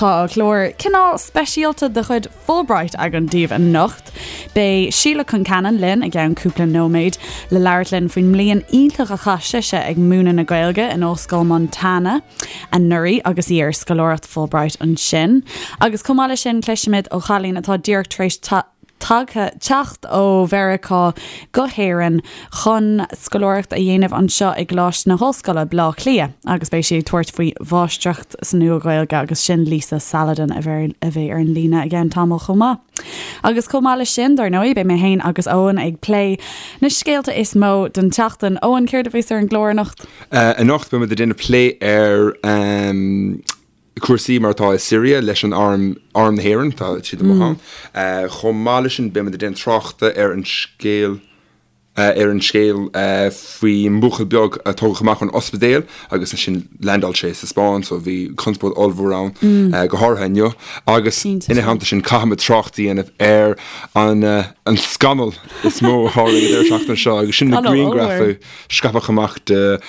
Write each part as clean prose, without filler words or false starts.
Tá clár cineál speisialta de chuid Fulbright againn daoibh anocht. Beidh Síle Concannon linn i gceann cúpla nóiméad le labhairt linn faoin mbliain iontach a chaith sise ag múineadh na Gaeilge in Ollscoil Montana anuraidh agus í ar scoláireacht Fulbright ansin. Agus chomh maith leis sin cloisfimid ó chailín atá díreach tar éis tagtha, teacht ó Mheiriceá go hÉirinn chun scoláireacht a dhéanamh anseo i gColáiste na hOllscoile, Baile Átha Cliath, agus beidh sí ag tabhairt faoi Mháistreacht sa Nua-Ghaeilge agus sin Lisa Saladin a bheidh ar an líne i gceann tamaill chomh maith. Agus chomh maith leis sin, dar ndóigh, beidh mé féin agus Eoin ag plé na scéalta is mó den tseachtain. Eoin, céard a bheas ar an gclár anocht? Anocht beidh muid ag déanamh plé ar. cúrsaí mar atá i Siria leis an arm, Arm na hÉireann, tá siad amuigh ann. Chomh maith leis sin, beimid ag déanamh tráchta ar an scéal ar an scéal faoi mbuachaill beag a tógadh amach ón ospidéal agus ansin landáil sé sa Spáinn, so bhí conspóid ollmhór ann, go háirithe inniu. Agus ina theannta sin, caithfimid trácht a dhéanamh ar an an scannal is mó a tharla an deireadh seachtaine seo agus sin na grianghraif a scaipeadh amach de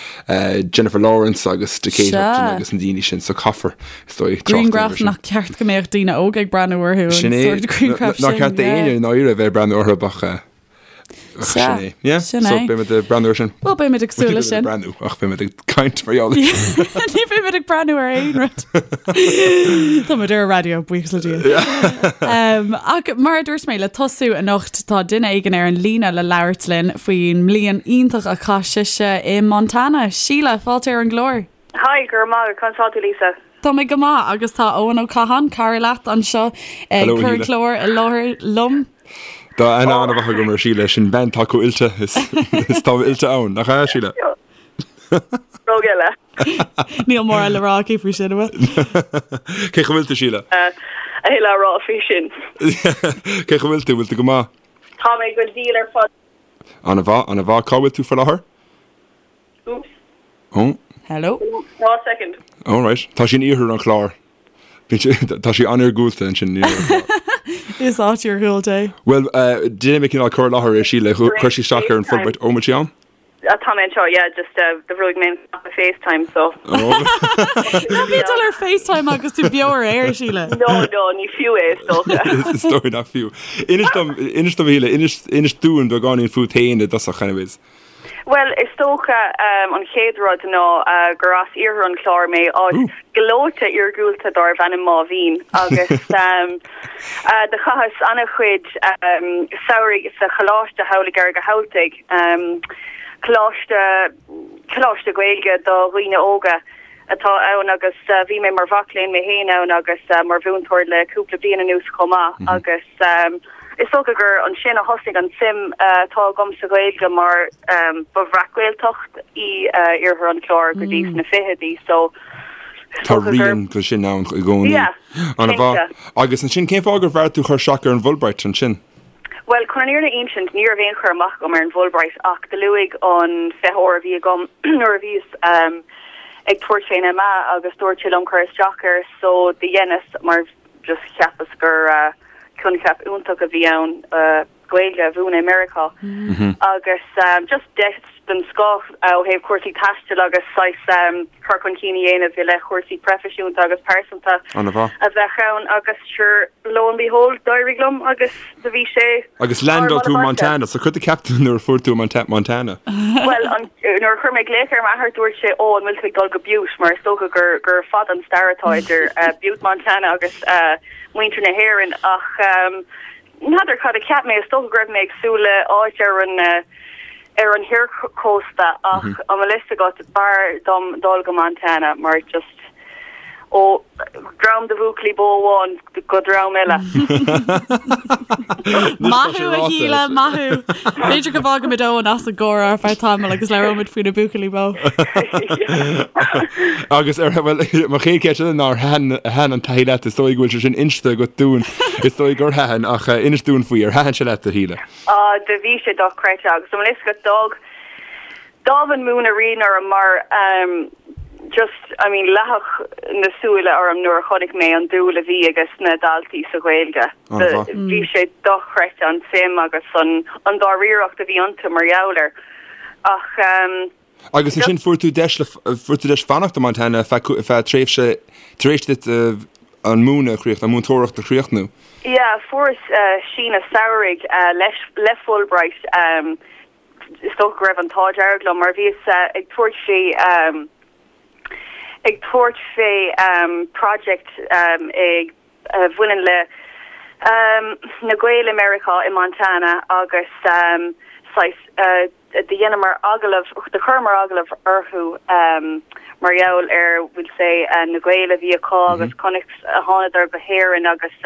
Jennifer Lawrence agus de Kate Upton agus na daoine sin so caithfear is dóigh trácht Grianghraf nach ceart go mbeadh daoine óga ag breathnú orthu Sin é nár cheart d'éinne i ndáiríre bheith ag breathnú orthu ach sin é. Yeah, so beimid ag breathnú ar sin. Well beimid ag súil leis sin. Breathnú ach beimid ag caint mar gheall air sin. Ní bheimid ag breathnú ar aon rud. Táimid ar an raidió, buíochas le Dia. Ach mar a dúirt mé, le tosú anocht tá duine éigin ar an líne le labhairt linn faoin mbliain iontach a chaith sise i Montana. Síle, fáilte ar an gclár. Hi, go raibh maith agat. Conas tá tú, Lisa? Tá mé go maith agus tá Eoin Ó Catháin, cara leat, anseo ag cur an clár i láthair liom. Tá aithne an-mhaith agam ar Shíle, sin bean atá chomh oilte is tá oilte ann, nach ea, Síle? Rogha eile. Níl mórán le rá aici faoi sin, an bhfuil? Cén chaoi a bhfuil tú, Síle? A thuilleadh a rá faoi sin. Cén chaoi a bhfuil tú? Bhfuil tú go maith? Tá mé go diail ar fad. An-mhaith, an-mhaith. Cá bhfuil tú faoi láthair? Oops. Oh. Hello. One second. All right. Tá sí in iarthar an Chláir. Tá sí an-iargúlta ansin. Is áit iargúlta é. Bhuel, déanfaidh mé cineál cur i láthair ar Síle. Chuir sí isteach ar an Fulbright. Ó, bhfuil sí ann? Tá mé anseo, yeah, just do bhrúigh mé an cnaipe FaceTime, so. Ná bí ag dul ar FaceTime agus tú beo ar aer, Síle. No, no, ní fiú é, is dócha. Is dóigh nach fiú. Inis dom, inis dom, a Shíle, inis, inis dúinn beagáinín fút féin i dtosach, anyways. Bhuel, is dócha an chéad rud ná gur as iarthar an Chláir mé, áit ghleoite iargúlta dárbh ainm Máigh Mhín, agus do chaitheas an-chuid samhraidh sa choláiste thall i gCarraig a' Thabhaltaigh, coláiste, coláiste Gaeilge do dhaoine óga atá ann agus bhí mé mar mhac léinn mé féin ann agus mar mhúinteoir le cúpla bliain anuas chomh maith agus is dócha gur ansin a thosnaigh an tsuim atá agam sa Ghaeilge mar ba bhreac-Ghaeltacht í iarthar an Chláir go dtí sna fichidí so Tá rian de sin ann i gcónaí. Yeah, cinnte. Agus ansin cén fáth gur bheartaigh tú cur isteach ar an bhFulbright ansin? Bhuel, chun an fhírinne a insint, ní raibh aon chur amach agam ar an bhFulbright ach do luaigh an feitheoir a bhí agam nuair a bhíos ag tabhairt fén MA agus dúirt sé liom cur isteach air so do dheineas mar just cheapas gur coincheap iontach a bhí ann Gaeilge a mhúineadh i Meiriceá agus just deis den scoth ó thaobh cúrsaí taistil agus saghas cur chun cinn a dhéanamh i leith chúrsaí proifisiúnta agus pearsanta a bheadh ann agus sure lo and behold d'éirigh liom agus do bhí sé Agus landáil tú i Montana, so cad a cheap tú nuair a fuair tú i Montana? Bhuel, nuair a chuir mé glaoch ar m'athair dúirt sé ó an bhfuil tú ag dul go Butte mar is dócha gur gur fada an stair atá idir Butte Montana agus muintir na hÉireann ach N'fheadar cad a cheap mé, is dócha go raibh mé ag súil le áit ar an ar an thiarchósta ach an bhfuil fhios agat, b'fhearr dom dul go Montana mar just ó dhream de bhuachaillí bó amháin go dream eile. Maith thú, a Shíle, maith thú. B'fhéidir go bhfágfaimid Eoin as an gcomhrá ar feadh tamaill agus labhróimid faoi na buachaillí bó. Agus ar, bhuel, mo chéad cheist eile ná ar thaitin an taithí leat, is dóigh go bhfuil sé sin inste agat dúinn, is dóigh gur thaitin, ach inis dúinn faoi, ar thaitin sé leat, a Shíle? Ah, do bhí sé dochreidte agus an bhfuil fhios agat, d'fhág, d'fhág an múineadh rian orm mar just, I mean, leathadh na súile orm nuair a chonaic mé an dúil a bhí ages na daltaí sa Ghaeilge. Bhí sé dochreidte an tsuim agus an, an dáiríreacht a bhí iontu mar gheall air. Ach. Agus ansin fuair tú deis le, fuair tú deis fanacht i Montana feadh, feadh tréimhse, tar éis duit. an múineadh a chríochnú, an múinteoireacht a chríochnú? Yeah, fuaireas síneadh samhraidh leis, le Fulbright. Is dócha go raibh an t-ádh dearg liom mar bhíos ag tabhairt fé, ag tabhairt fé project ag, a bhaineann le na Gaeil i Meiriceá i Montana agus saghas do dheineamar agallamh, do chuireamar agallamh orthu mar gheall ar we'll say na Gaeil a bhí acu agus conas a thánadar go hÉirinn agus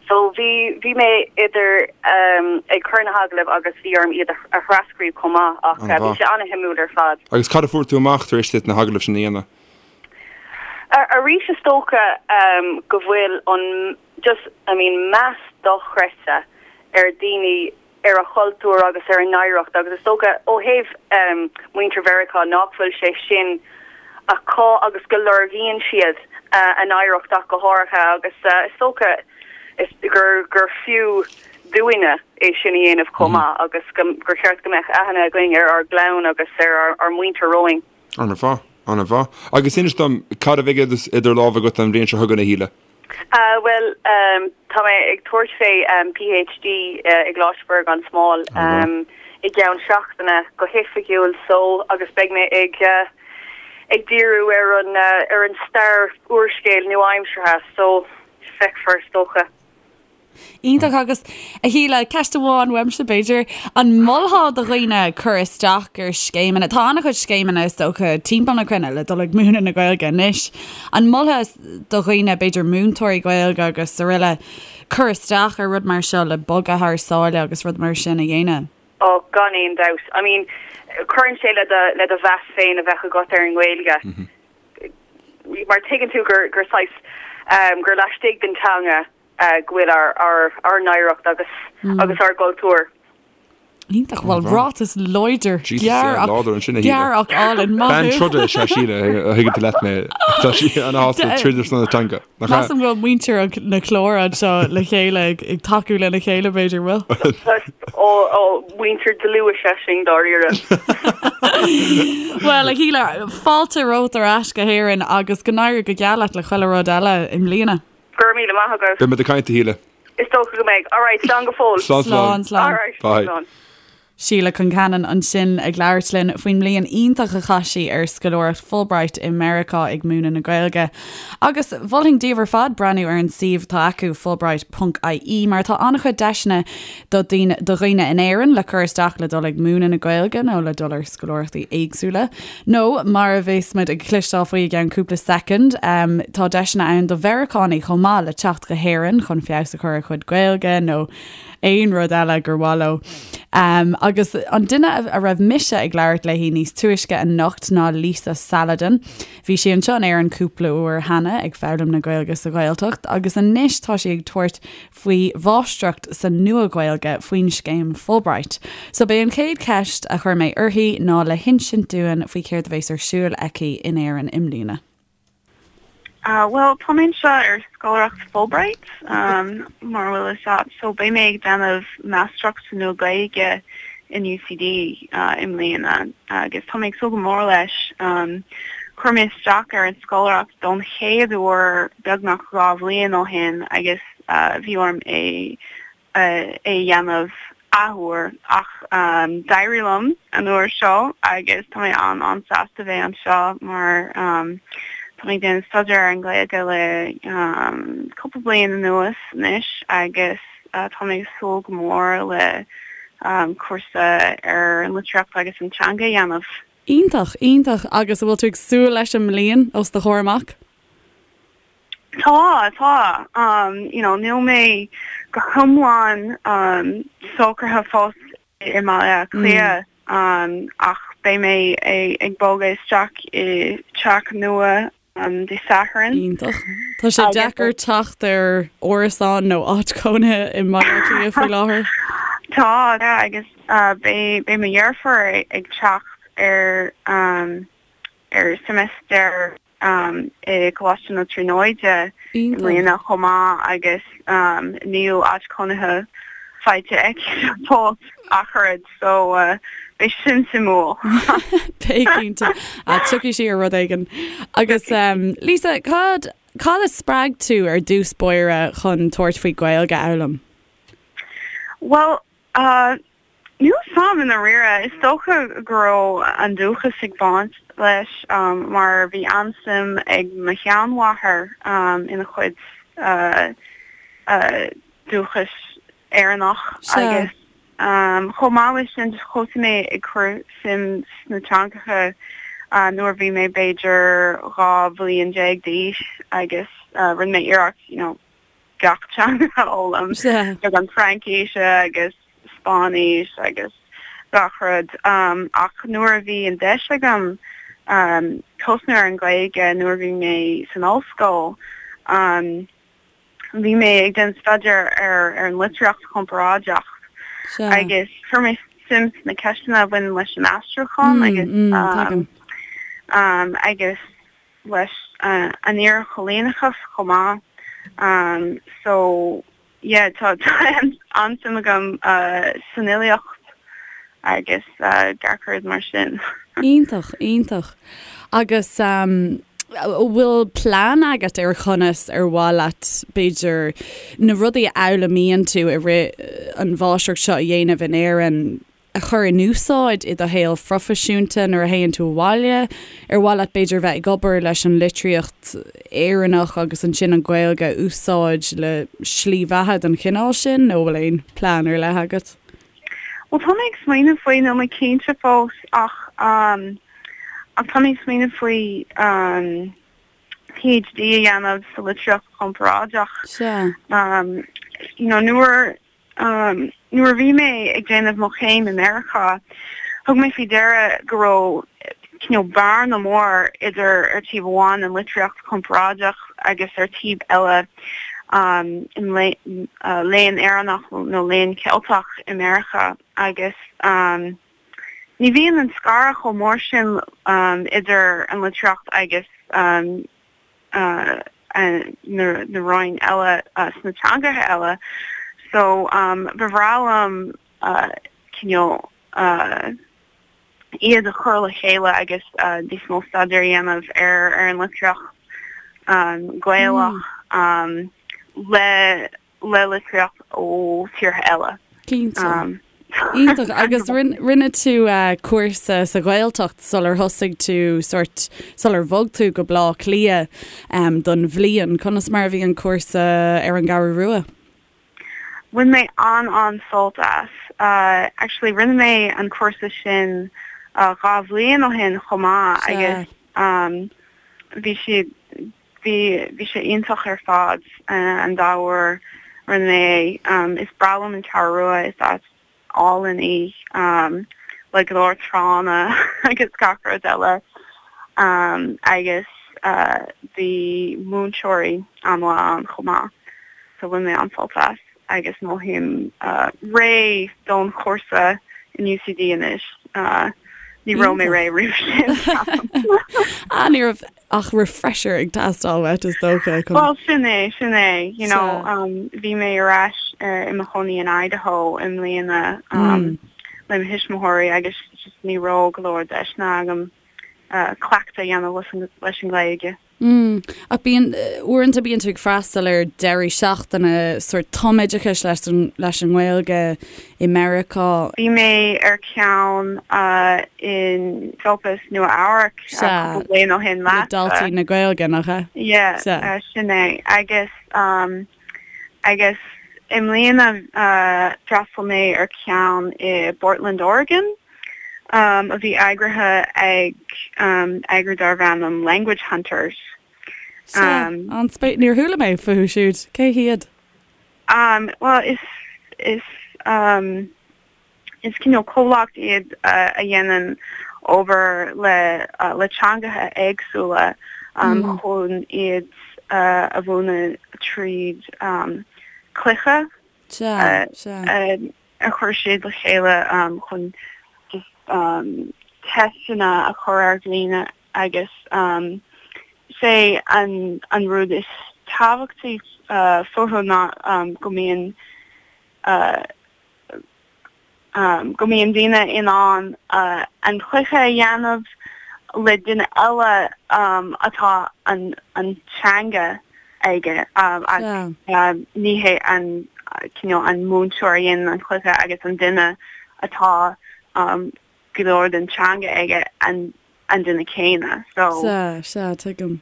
so bhí bhí mé idir ag cur na hagallaimh agus bhí orm iad a thrascríobh chomh maith ach bhí sé an-shuimiúil ar fad. Agus cad a fuair tú amach tar éis duit na hagallaimh sin a dhéanamh? Arís is dócha go bhfuil an just I mean meas dochreidte ar daoine ar a chultúr agus ar a n-oidhreacht agus is dócha ó thaobh muintir Mheiriceá nach bhfuil sé sin acu agus go lorgaíonn siad a n-oidhreacht ach go háirithe agus is dócha gur gur fiú dúinne é sin a dhéanamh chomh maith agus gur cheart go mbeadh aithne againn ar ár gclann agus ar ár muintir romhainn. An-mhaith, an-mhaith. Agus inis dom, cad a bheidh idir lámha agat an bhliain seo chugainn, a Shíle? Bhuel, tá mé ag tabhairt fé PhD i gColáiste Mhuire gan Smál i gceann seachtaine go hoifigiúil so agus beidh mé ag ag díriú ar an ar an stair úrscéil nua-aimseartha so feicfear is dócha. Iontach agus a Shíle, ceist amháin uaimse b'fhéidir, an molfá do dhaoine cur isteach ar scéimeanna, tá an-chuid scéimeanna is dócha timpeall na cruinne le dul ag múineadh na Gaeilge anois, an molfá do dhaoine, b'fhéidir múinteoirí Gaeilge agus araile, cur isteach ar rud mar seo le bogadh thar sáile agus rud mar sin a dhéanamh? Ó, gan aon dabht. I mean, cuireann sé le do, le do mheas féin a bheith agat ar an nGaeilge. Mar tuigeann tú gur, gur saghas, gur laistigh den teanga go bhfuil ár n-oidhreacht agus agus ár gcultúr. Iontach, bhuel ráiteas láidir, gearr ach gearr ach álainn, maith thú. Bean troda is ea Síle, a thuigeann tú leat mé. Tá sí ana-shásta troid ar son na teanga. Measaim go bhfuil muintir na clár anseo le chéile ag tacú lena chéile b'fhéidir, bhfuil? Ó, ó, muintir dlúth is ea sinn dáiríre. Bhuel, a Shíle, fáilte romhat ar ais go hÉirinn agus go n-éirí go geal leat le chuile rud eile i mbliana. Go raibh míle maith agat. Beidh muid ag caint, a Shíle. Is dócha go mbeidh. Alright, slán go fóill. Slán, slán. Slán, slán. Alright, Bye. slán. Síle Concannon ansin ag labhairt linn faoin mbliain iontach a chaith sí ar scoláireacht Fulbright i Meiriceá ag múineadh na Gaeilge. Agus mholfainn daoibh ar fad breathnú ar an suíomh atá acu, fulbright ponc ie, mar tá an-chuid deiseanna do do dhaoine in Éirinn le cur isteach le dul ag múineadh na Gaeilge nó le dul ar scoláireachtaí éagsúla. Nó, mar a bheas muid ag cloisteáil faoi i gceann cúpla soicind, tá deiseanna ann do Mheiriceánaigh chomh maith le teacht go hÉirinn chun feabhas a chur ar a gcuid Gaeilge nó aon rud eile gur mhaith leo. Agus an duine a raibh mise ag labhairt léi níos túisce anocht ná Lisa Saladin. Bhí sí anseo in Éirinn cúpla uair cheana ag foghlaim na Gaeilge sa Ghaeltacht agus anois tá sí ag tabhairt faoi mháistreacht sa Nua-Ghaeilge faoin scéim Fulbright. So b'é an chéad cheist a chuir mé uirthi ná le hinsint dúinn faoi céard a bhéas ar siúl aici in Éirinn i mbliana. Bhuel, tá mé anseo ar scoláireacht Fulbright, mar a bhfuil fhios a't, so beidh mé ag déanamh máistreacht sa Nua-Ghaeilge in UCD i mbliana agus tá mé ag súil go mór leis. Chuir mé isteach ar an scoláireacht don chéad uair beagnach 2 bhliain ó shin agus bhí orm é a dhéanamh athuair ach d'éirigh liom an uair seo agus tá mé an-an-sásta bheith anseo mar tá mé ag déanamh staidéar ar an Ghaeilge le cúpla bliain anuas anois agus tá mé ag súil go mór le cúrsa ar an litríocht agus an teanga a dhéanamh. Iontach, iontach agus an bhfuil tú ag súil leis an mbliain os do chomhair amach? Tá, tá. You know, níl mé go hiomlán socraithe fós i mBaile Átha Cliath ach beidh mé ag bogadh isteach i teach nua Dé Sathairn. Iontach. Tá sé deacair teacht ar árasán nó áit chónaithe i mBaile Átha Cliath faoi láthair. Tá, agus beidh mo dheirfiúr ag teacht ar ar seimeastar i gColáiste na Tríonóide i mbliana chomh maith agus níl áit chónaithe faighte aici fós ach oiread so beidh sin suimiúil. Beidh cinnte. Tiocfaidh sí ar rud éigin. Agus Lisa, cad. Cad a spreag tú ar dtús báire chun tabhairt faoi Gaeilge a fhoghlaim? Bhuel, níl a fhios a'm i ndáiríre. Is dócha go raibh an dúchas ag baint leis mar bhí an-suim ag mo sheanmháthair ina cuid dúchais Éireannach agus chomh maith leis sin thosaigh mé ag cur suim sna teangacha nuair a bhí mé b'fhéidir 12 bhliain d'aois agus rinne mé iarracht you know gach teanga a fhoghlaim, beagán Fraincíse agus Spáinnis agus gach rud ach nuair a bhí an deis agam tosnú ar an Ghaeilge nuair a bhí mé san ollscoil, Bhí mé ag déanamh staidéar ar ar an litríocht chomparáideach agus chuir mé suim sna ceisteanna a bhaineann leis an aistriúchán agus agus leis an iarchoilíneachas chomh maith. So yeah tá an-suim agam san fhilíocht agus gach rud mar sin. Iontach, iontach. Agus an bhfuil plean agat ar chonas ar mhaith leat, b'fhéidir, na rudaí a fhoghlaimíonn tú i rith an mháistreacht seo a dhéanamh in Éirinn a chur in úsáid i do shaol phroifisiúnta nuair a théann tú abhaile? Ar mhaith leat b'fhéidir bheith ag obair leis an litríocht Éireannach agus ansin an Ghaeilge a úsáid le slí bheatha den chineál sin nó bhfuil aon plean ar leith agat? Bhuel, tá mé ag smaoineamh faoi, níl mé cinnte fós ach ach tá mé ag smaoineamh faoi PhD a dhéanamh sa litríocht chomparáideach. Sea. You know, nuair nuair a bhí mé ag déanamh mo chéim i Meiriceá, thug mé faoi deara go raibh cineál bearna mór idir ar taobh amháin an litríocht chomparáideach agus ar taobh eile an léann Éireannach nó léann Ceilteach i Meiriceá agus ní bhíonn an scaradh chomh mór sin idir an litríocht agus na rainn eile sna teangacha eile so ba bhreá liom cineál iad a chur le chéile agus níos mó staidéar a dhéanamh ar ar an litríocht Ghaelach le le litríocht ó tíortha eile. Cinnte. Iontach. Agus rinne tú cúrsa sa Ghaeltacht sular thosaigh tú sort sular bhog tú go Bleá Cliath don bhliain. Conas mar a bhí an cúrsa ar an gCeathrú Rua? Bhain mé an-an-sult as. Actually rinne mé an cúrsa sin 2 bhliain ó shin chomh maith agus bhí siad, bhí, bhí sé iontach ar fad an dá uair a rinne mé é. Is breá liom an Cheathrú Rua, is áit álainn í le go leor tránna agus gach rud eile agus bhí múinteoirí an-mhaith ann chomh maith so bhain mé an-sult as agus mothaím réidh don chúrsa in UCD anois. Ní raibh mé réidh roimh sin. Ah, ní raibh ach refresher ag teastáil uait is dócha chun. Bhuel, sin é, sin é. You know, bhí mé ar ais i mo chónaí in Idaho i mbliana le mo thuismitheoirí agus just ní raibh go leor deiseanna agam cleachtadh a dhéanamh leis an nGaeilge. Mm. Ach bíonn, uaireanta bíonn tú ag freastal ar deirí seachtaine sórt tumoideachais leis an, leis an nGaeilge i Meiriceá. Bhí mé ar cheann in Esopus, Nua Eabhrac cúpla bliain ó shin leatsa. Le Daltaí na Gaeilge, nach ea? Yeah, sin é. Agus, agus i mbliana d'fhreastail mé ar cheann i bPortland, Oregon. a bhí eagraithe ag eagrú darbh ainm Language Hunters. Sea, an-spéis, níor chuala mé fúthu siúd. Cé hiad? Bhuel, is, is, is cineál comhlacht iad a dhéanann obair le, le teangacha éagsúla chun iad a mhúineadh tríd cluiche. Sea, sea. a chuir siad le chéile chun just teisteanna a chur ar dhaoine agus is é an an rud is tábhachtaí fúthu ná go mbíonn go mbíonn daoine in ann an cluiche a dhéanamh. le duine eile atá an an teanga aige ach ní hé an cineál an múinteoir a dhéanann an cluiche agus an duine atá go leor den teanga aige an an duine céanna so. Sea, sea, tuigim.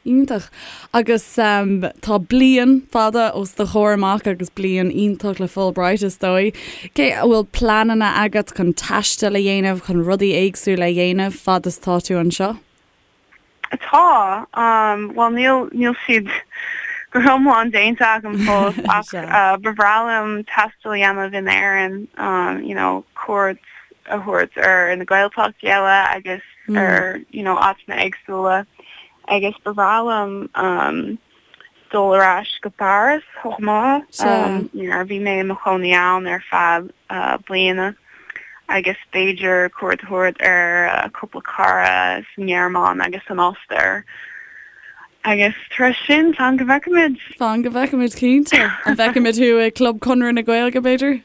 Iontach. Agus tá bliain fada os do chomhair amach agus bliain iontach le Fulbright is dóigh. Cé, an bhfuil pleananna agat chun taisteal a dhéanamh, chun rudaí éagsúla a dhéanamh fad is tá tú anseo? Tá. Bhuel níl, níl siad go hiomlán déanta agam fós ach ba bhreá liom taisteal a dhéanamh in Éirinn, you know, cuairt a thabhairt ar na Gaeltachtaí eile agus ar, you know, áiteanna éagsúla. Agus ba bhreá liom dul ar ais go Páras chomh maith. You know, bhí mé i mo chónaí ann ar feadh bliana agus b'fhéidir cuairt a thabhairt ar cúpla cara sa nGearmáin agus san Ostair. Agus tar éis sin, fan go bhfeicfimid. Fan go bhfeicfimid, cinnte. An bhfeicfimid thú i gClub Chonradh na Gaeilge, b'fhéidir?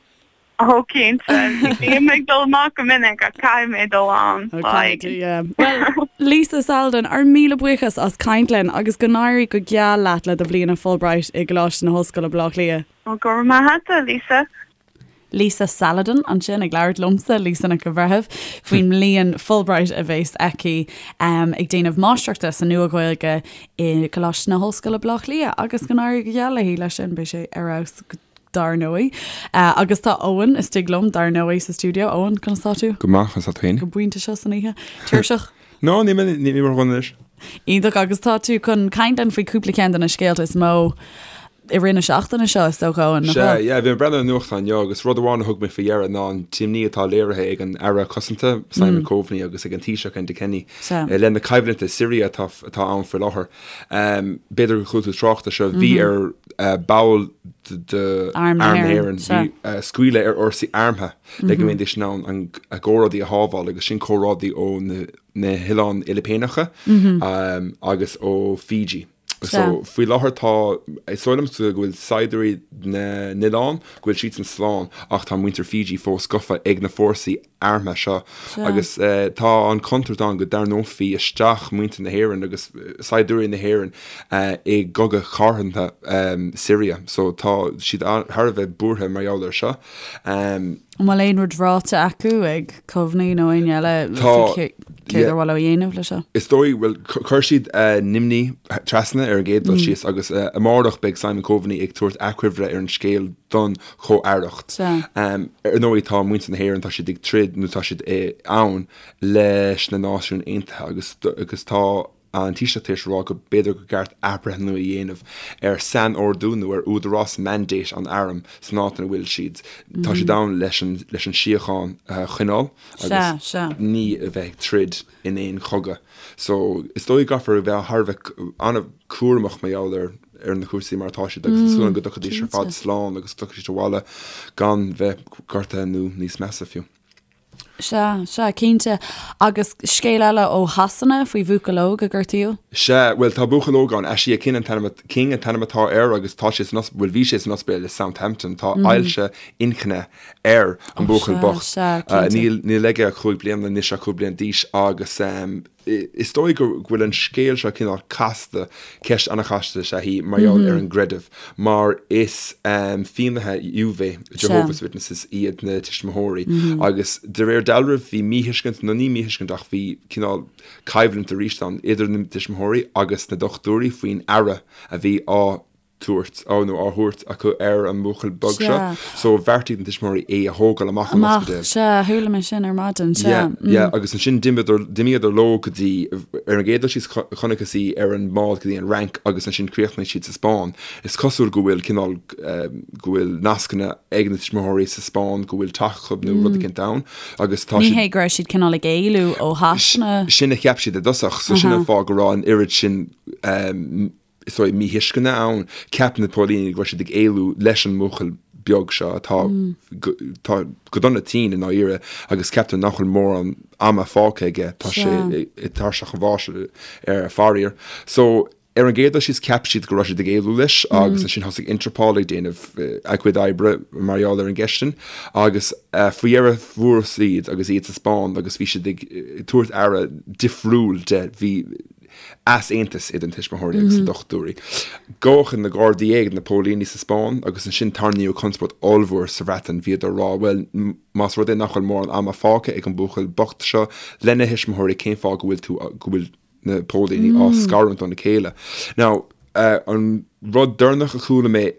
Ó cinnte, bím ag dul amach go minic ach caithfidh mé dul ann. Bhuel, Lisa Saladin, ár míle buíochas as caint linn agus go n-éirí go geal leat le do bhliain Fulbright i gColáiste na hOllscoile Baile Átha Cliath. Ó, go raibh maith agat, Lisa. Lisa Saladin ansin ag labhairt liomsa, Lisa Nic an Bhreithimh, faoin mbliain Fulbright a bheas aici ag déanamh máistreachta sa Nua-Ghaeilge i gColáiste na hOllscoile Baile Átha Cliath agus go n-éirí go geal léi leis sin, beidh sé ar fheabhas go dar ndóigh. Agus tá Eoin istigh liom, dar ndóigh, sa stiúideo. Eoin, conas tá tú? Go maith, conas tá tú féin? Go pointe seo san oíche. Tuirseach? No, níl mé, níl mé ródhona anois. Iontach, agus tá tú chun caint linn faoi cúpla ceann de na scéalta is mó i rith na seachtaine seo, is dócha, Eoin, nach bhfuil? Sea, yeah, bhí mé ag breathnú ar an nuachtán inniu agus rud amháin a thug mé faoi deara ná an t-imní atá léirithe ag an Aire Cosanta, Simon Coveney, agus ag an Taoiseach, Enda Kenny, i leith na coimhlinte i Siria atá atá ann faoi láthair. B'fhéidir gur chuala tú trácht air seo, bhí ar ball d'Arm na hÉireann, bhí scaoileadh ar fhórsaí armtha le go mbeidís in ann a gcomrádaí a shábháil agus sin comrádaí ó na hOileáin Fhilipíneacha agus ó Fiji. So faoi láthair tá, is dóigh liomsa go bhfuil saighdiúirí na n-oileán, go bhfuil siadsan slán ach tá muintir Fiji fós gafa ag na fórsaí armtha seo agus tá an chontúirt ann go dtarraingeofaí isteach muintir na hÉireann agus saighdiúirí na hÉireann i gcogadh cathartha Siria. So tá siad thar a bheith buartha mar gheall air seo. An bhfuil aon rud ráite acu ag Coveney nó éinne eile faoi céard ar mhaith leo a dhéanamh leis seo? Is dóigh, bhuel, chuir siad a n-imní trasna ar an gcéad dul síos agus amárach beidh Simon Coveney ag tabhairt achoimre ar an scéal don chomh-aireacht. Ar ndóigh tá muintir na hÉireann, tá siad ag troid nó tá siad ann leis na Náisiúin Aontaithe agus agus tá an Taoiseach tar éis a rá go b'fhéidir gur ceart athbhreithniú a dhéanamh ar sainordú nó ar údarás mandate an airm san áit ina bhfuil siad. Tá siad ann leis an leis an síocháin a choinneáil agus ní a bheith ag troid in aon chogadh. So is dóigh go gcaithfear a bheith thar a bheith an-chúramach mar gheall ar ar na cúrsaí mar atá siad agus tá súil agam go dtiocfaidís ar fad slán agus go dtiocfaidh siad abhaile gan bheith gortaithe nó níos measa fiú. Sea, sea, cinnte. Agus scéal eile ó Shasana faoi bhuachaill óg a gortaíodh? Sea, bhuel tá buachaill óg ann, Ashia King an t-ainm, King an t-ainm atá air agus tá sé san, bhuel bhí sé san ospidéal i Southampton, tá ailse inchinne ar an buachaill bocht. Sea, cinnte. Níl, níl aige ach 5 bliana, níl sé ach 5 bliana d'aois agus Is dóigh go bhfuil an scéal seo cineál casta, ceist an-chasta is ea í mar gheall ar an gcreideamh, mar is Fiannaithe Iehova, Jehovah's Witnesses, iad na tuismitheoirí agus de réir dealraimh bhí míthuiscint, nó ní míthuiscint ach bhí cineál coimhlint arís ann idir na tuismitheoirí agus na dochtúirí faoin aire a bhí á tabhairt, á nó á thabhairt acu ar an mbuachaill beag seo. So bheartaigh na tuismitheoirí é a thógáil amach ón ospidéal. Amach, sea, chuala mé sin ar maidin, sea. Yeah, yeah, agus ansin d'imíodar, d'imíodar leo go dtí, ar an gcéad dul síos chonacthas í ar an mbád go dtí an Fhrainc agus ansin chríochnaigh siad sa Spáinn. Is cosúil go bhfuil cineál, go bhfuil nascanna ag na tuismitheoirí sa Spáinn, go bhfuil teach acu nó rud éicint ann agus tá siad. Ní hé go raibh siad cineál ag éalú ó Shasana. Sin a cheap siad i dtosach, so sin an fáth go raibh an oiread sin, is dóigh, míthuisceana ann. Cheap na póilíní go raibh siad ag éalú leis an mbuachaill beag seo atá tá go dona tinn i ndáiríre agus ceaptar nach bhfuil mórán ama fágtha aige, tá sé ag tairseach an bháis ar faraor. So. Ar an gcéad dul síos cheap siad go raibh siad ag éalú leis agus ansin thosaigh Interpol ag déanamh a gcuid oibre mar gheall ar an gceist sin agus faoi dheireadh fuarthas iad agus iad sa Spáinn agus bhí siad ag tabhairt aire difriúil de, bhí easaontas idir na tuismitheoirí agus na dochtúirí. Gabhadh na Gardaí é, na póilíní sa Spáinn agus ansin tarraingíodh conspóid ollmhór sa Bhreatain, bhíodar ag rá bhuel más rud é nach bhfuil mórán ama fágtha ag an buachaill bocht seo lena thuismitheoirí cén fáth go bhfuil tú, go bhfuil. na póilíní á scarúint óna chéile. Now, an rud deireanach a chuala mé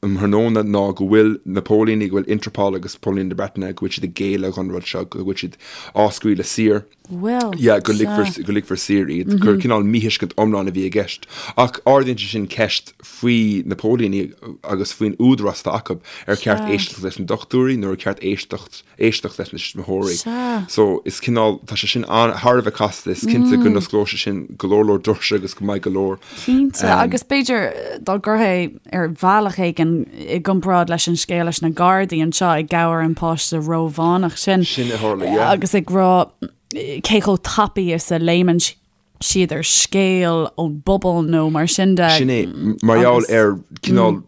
um thráthnóna ná go bhfuil na póilíní, go bhfuil Interpol agus póilíní na Breataine, go bhfuil siad ag géilleadh don rud seo, go bhfuil siad á scaoileadh saor. Bhfuil? Yeah, go ligfear, go ligfear saor iad, gur cineál míthuiscint iomlán a bhí i gceist. Ach ardaíonn sé sin ceist faoi na póilíní agus faoin údarás atá acu, ar cheart éisteacht leis na dochtúirí nó ar cheart éisteacht éisteacht leis na tuismitheoirí. Sea. So, is cineál, tá sé sin an, thar a bheith casta, is cinnte go n-osclóidh sé sin go leor leor doirse agus go mbeidh go leor. Cinnte, agus b'fhéidir dá gcuirfí ar bhealach éigin i gcomparáid leis an scéal leis na Gardaí anseo ag gabháil an páiste Rómhánach sin. Sin a tharla, yeah. Agus ag rá cé chomh tapaidh is a léimeann siad ar scéal ón bpobal nó mar sin de. Sin é, mar gheall ar cineál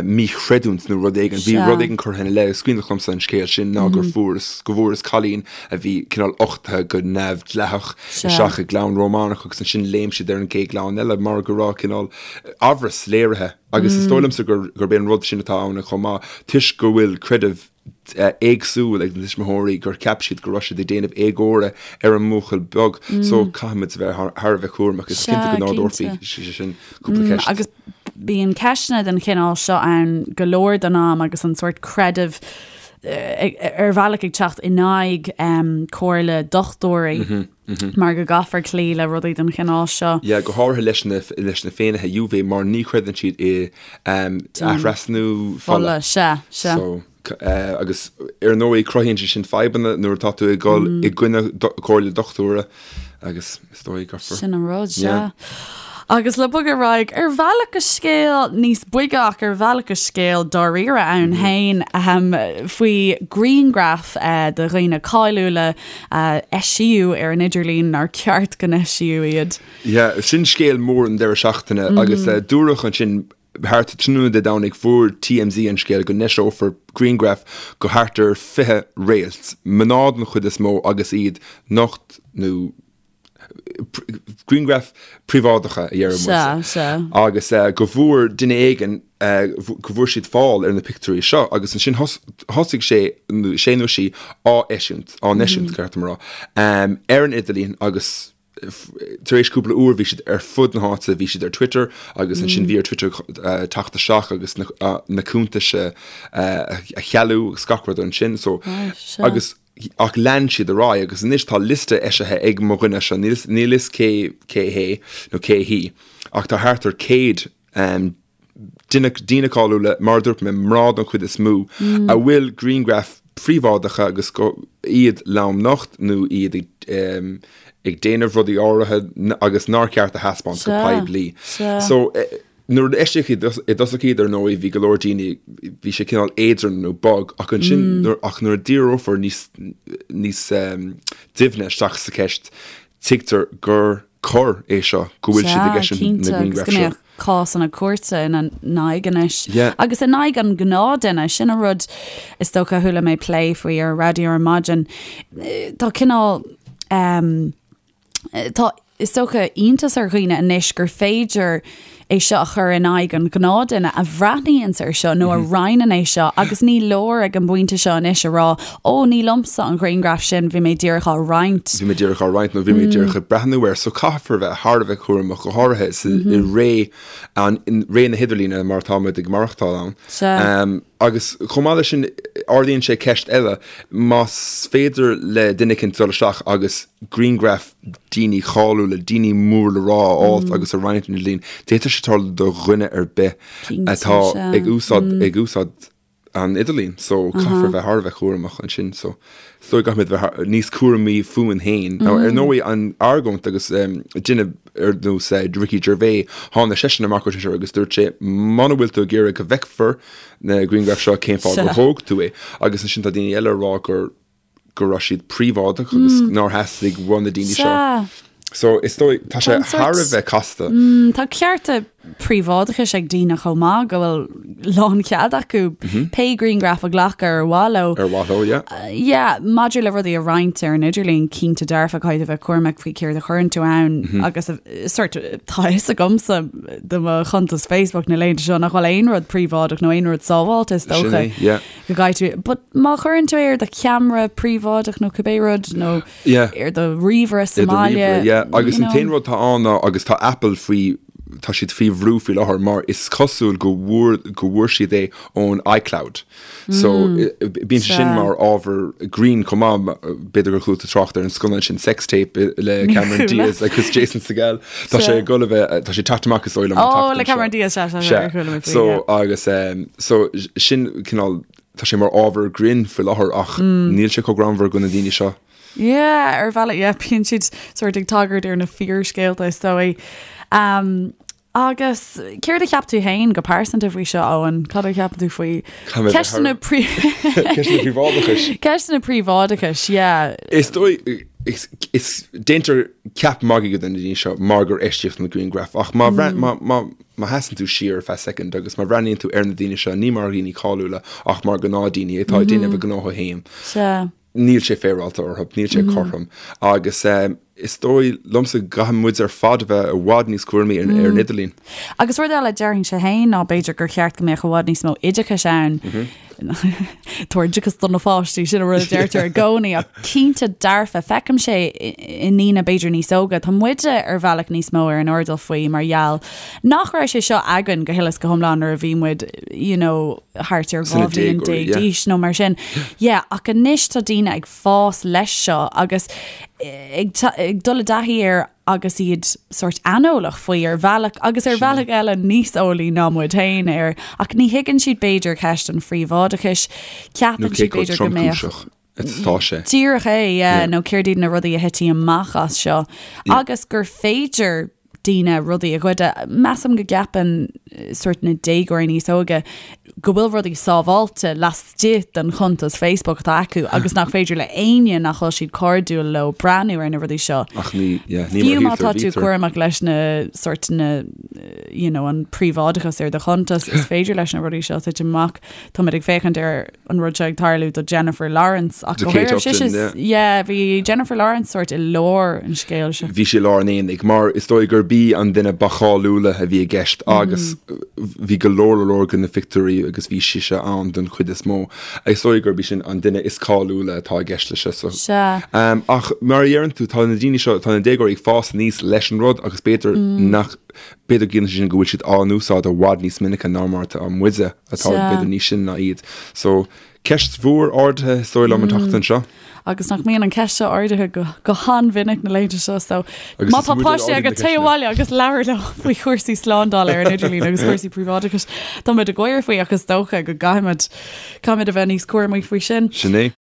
míchreidiúint nó rud éigin, bhí rud éigin curtha ina leith, is cuimhneach liomsa an scéal sin ná gur fuarthas, go bhfuarthas cailín a bhí cineál uchtaithe go neamhdhleathach isteach i gclann Rómánach agus ansin léim siad ar an gcéad chlann eile mar go raibh cineál amhras léirithe agus is dóigh liomsa gurb é an rud sin atá ann chomh maith toisc go bhfuil creideamh éagsúil ag na tuismitheoirí gur cheap siad go raibh siad ag déanamh éagóra ar an mbuachaill beag so caithfimid a bheith thar a bheith cúramach. Is cinnte go n-ardófaí sé sin cúpla ceist. Agus bíonn ceisteanna den chineál seo ann go leor den am agus an sórt creideamh ar bhealach ag teacht in aghaidh comhairle dochtúirí. Mar go gcaithfear cloí le rudaí den chineál seo. Yeah, go háirithe leis na, leis na Féinnithe Juve mar ní chreideann siad i athrasnú fola. Sea, sea. So, agus ar ndóigh cruthaíonn sé sin fadhbanna nuair atá tú ag dul i gcoinne comhairle dochtúra agus is dóigh go. Sin an rud, sea. Agus le bogadh ar aghaidh, ar bhealach go scéal níos boige ach ar bhealach go scéal dáiríre ann féin faoi ghrianghraif de dhaoine cáiliúla a eisíodh ar an idirlíon nár cheart go n-eisíodh iad. Yeah, sin scéal mór an deireadh seachtaine agus dúradh ansin thart tráthnóna Dé Domhnaigh fuair TMZ an scéal go n-eiseofar grianghraif de thart ar 20 réalt, mná den chuid is mó agus iad nocht nó grianghraif príobháideacha a deireadh muid. Sea, sea. Agus go bhfuair duine éigin, go bhfuair siad fáil ar na pictiúirí seo agus ansin thosaigh sé, sé nó sí á eisiúint, á n-eisiúint, ceart dom a rá, ar an idirlíon agus tar éis cúpla uair bhí siad ar fud na háite, bhí siad ar Twitter agus ansin bhí ar Twitter teacht isteach agus na cuntais a chealú agus gach rud ansin. So, agus Ach lean siad ar aghaidh agus anois tá liosta eisithe ag mo dhuine seo, níl fhios cé cé hé nó cé hí, ach tá thart ar 100 duine, daoine cáiliúla, mar a dúirt mé, mná don chuid is mó, a bhfuil grianghraif phríobháideacha agus go, iad lomnocht nó iad ag ag déanamh rudaí áirithe agus nár cheart a thaispeáint go poiblí. So. Nuair a eisíodh i dtosach iad, ar ndóigh, bhí go leor daoine, bhí sé cineál éadrom nó bog, ach ansin, ach nuair a díreofar níos, níos doimhne isteach sa cheist, tuigtear gur coir é seo, go bhfuil siad ag eisiúint na grianghraif seo. Sea, cinnte, agus go mbeadh cásanna cúirte ina n-aghaidh anois. Yeah. Agus in aghaidh an ghnáthduine, sin an rud is dócha a chuala mé plé faoi ar an raidió ar maidin. Tá cineál, Tá, is dócha, iontas ar dhaoine anois gur féidir é seo a chur in aghaidh an ghnáthduine a bhreathnaíonns air seo nó a roinneann é seo agus ní leor ag an bpointe seo anois a rá, ó, ní liomsa an ghrianghraf sin, bhí mé díreach á roinnt. Bhí mé díreach á roinnt nó bhí mé díreach ag breathnú air. So caithfear a bheith thar a bheith cúramach, go háirithe i ré an, ré na hidirlíne mar atá muid ag maireachtáil ann. Sea. Agus chomh maith leis sin, ardaíonn sé ceist eile, más féidir le duine éicint dul isteach agus grianghraif daoine cáiliúla, daoine mór le rá a fháilt agus a roinnt ar an idirlíon, d'fhéadfadh sé tarlú do dhuine ar bith atá ag úsáid, ag úsáid an idirlín. So caithfear a bheith thar a bheith cúramach ansin. So is dóigh go gcaithfimid bheith níos cúramaí fúinn féin. Now ar ndóigh an argóint agus duine ar nós Ricky Gervais, tháinig seisean amach ar Twitter agus dúirt sé muna bhfuil tú ag iarraidh go bhfeicfear na grianghraif seo cén fáth gur thóg tú é. Agus ansin tá daoine eile ag rá gur go raibh siad príobháideach agus nár theastaigh ó na daoine seo. Sea. So is dóigh, tá sé thar a bheith casta. Tá cearta príobháideachais ag daoine chomh maith go bhfuil lánchead acu pé grianghraf a ghlacadh ar mhaith leo. Ar mhaith leo, yeah. Yeah, maidir le rudaí a roinnt ar an idirlíon, cinnte dearfa caithfidh tú bheith cúramach faoi céard a chuireann tú ann agus sort tá a fhios agamsa do mo chuntas Facebook na laethanta seo nach bhfuil aon rud príobháideach nó aon rud sábháilte is Sin dócha. é, yeah. Go gcaithfidh tú, but má chuireann tú é ar do cheamara príobháideach nó cibé rud nó Yeah. ar do ríomhaire sa Ar do mbaile. ríomhaire, yeah. Agus you an t-aon know. rud atá ann ná, agus tá Apple faoi, tá siad faoi bhrú faoi láthair mar is cosúil go bhfuair, go bhfuair siad é ón iCloud. So, bíonn sé sin Sea. mar ábhar grinn chomh maith, b'fhéidir gur chuala tú trácht ar an scannán sin Sex Tape le Níor Cameron chuala. Diaz agus Jason Segel. Tá sé Sea. ag dul a bheith, tá sé ag teacht amach is dóigh liom an Ó, tseachtain le Cameron seo. Diaz, sea, sea, sea, Sea. ar chuala mé faoi, So, yeah. agus, so, sin cineál, Tá sé mar ábhar grinn faoi láthair ach níl sé chomh greannmhar do na daoine seo. Yeah, ar bhealach, yeah, bíonn siad sort ag tagairt ar na fíorscéalta is dóigh. Um, agus céard a cheap tú féin go pearsanta faoi seo, Eoin? Cad a cheapann tú faoi ceisteanna príobháideachais? Ceisteanna príobháideachais. Ceisteanna príobháideachais, yeah. Is dóigh, is, is déantar ceap magaidh de na daoine seo mar gur eisíodh na grianghraif ach má, má, má, Má sheasann tú siar ar feadh soicind agus má bhreathnaíonn tú ar na daoine seo, ní mar dhaoine cáiliúla ach mar gnáthdhaoine atá ag déanamh a ngnótha féin, níl sé féaráilte orthu, níl sé cothrom. Agus is dóigh liomsa go gcaithfidh muid ar fad a bheith i bhfad níos cúramaí ar an idirlíon. Agus rud eile, déarfainnse féin ná b'fhéidir gur cheart go mbeadh i bhfad níos mó oideachais ann. Tabhair oideachas do na pháistí, sin an rud a deirtear i gcónaí, ach cinnte dearfa, feicimse i ndaoine b'fhéidir níos óga, tá muide ar bhealach níos mó ar an airdeall faoi mar gheall nach raibh sé seo againn go huile is go hiomlán nuair a bhí muid you know, thart ar 12 bhliain d'aois nó mar sin. Yeah, ach anois tá daoine ag fás leis seo agus ag, ag dul i dtaithí air agus iad sórt aineolach faoi ar bhealach agus ar bhealach eile níos eolaí ná muid féin air ach ní thuigeann siad b'fhéidir ceist an phríobháideachais, ceapann siad b'fhéidir go mbeadh. Atá sé. Díreach é, yeah, nó céard iad na rudaí a thitfidh amach as seo agus gur féidir daoine rudaí a ghoideadh. Measaim go gceapann sórt na déagóirí níos óige go bhfuil rudaí sábháilte laistigh den chuntas Facebook atá acu agus nach féidir le éinne nach bhfuil siad cairdiúil leo breathnú ar na rudaí seo. Ach ní, yeah, ní Fiú má tá tú cúramach leis na sórt na you know, an príobháideachas ar do chuntas, is féidir leis na rudaí seo titim amach. Táimid ag féachaint ar an rud seo ag tarlú do Jennifer Lawrence ach Do Kate Upton, yeah. Bhí Jennifer Lawrence sórt i lár an scéil seo. Bhí sí i lár an aonaigh mar is dóigh gurb í an duine ba cháiliúla a bhí i gceist agus bhí go leor leor de na pictiúirí agus bhí sise ann don chuid is mó. Is dóigh gurb í sin an duine is cáiliúla atá i gceist leis seo. So. Sea. Ach mar a dheireann tú, tá na daoine seo, tá na déagóirí ag fás aníos leis an rud agus b'fhéidir nach, b'fhéidir go gciallaíonn sé sin go bhfuil siad á n-úsáid i bhfad níos minice ná mar atá muide. atá b'fhéidir níos sine ná iad. So, ceist mhór ardaithe is dóigh liom an tseachtain seo. Agus nach mbíonn an ceist seo ardaithe go, go han-mhinic na laethanta seo, so Agus má is tá muid ar páistí ardaigh na agat téigh ceisteanna. abhaile agus labhair leo faoi chúrsaí slándála ar an idirlíon agus cúrsaí príobháideachais. Tá muid ag gáire faoi ach is dócha go gcaithfimid, caithfimid a bheith níos cúramaí faoi sin. Sin é.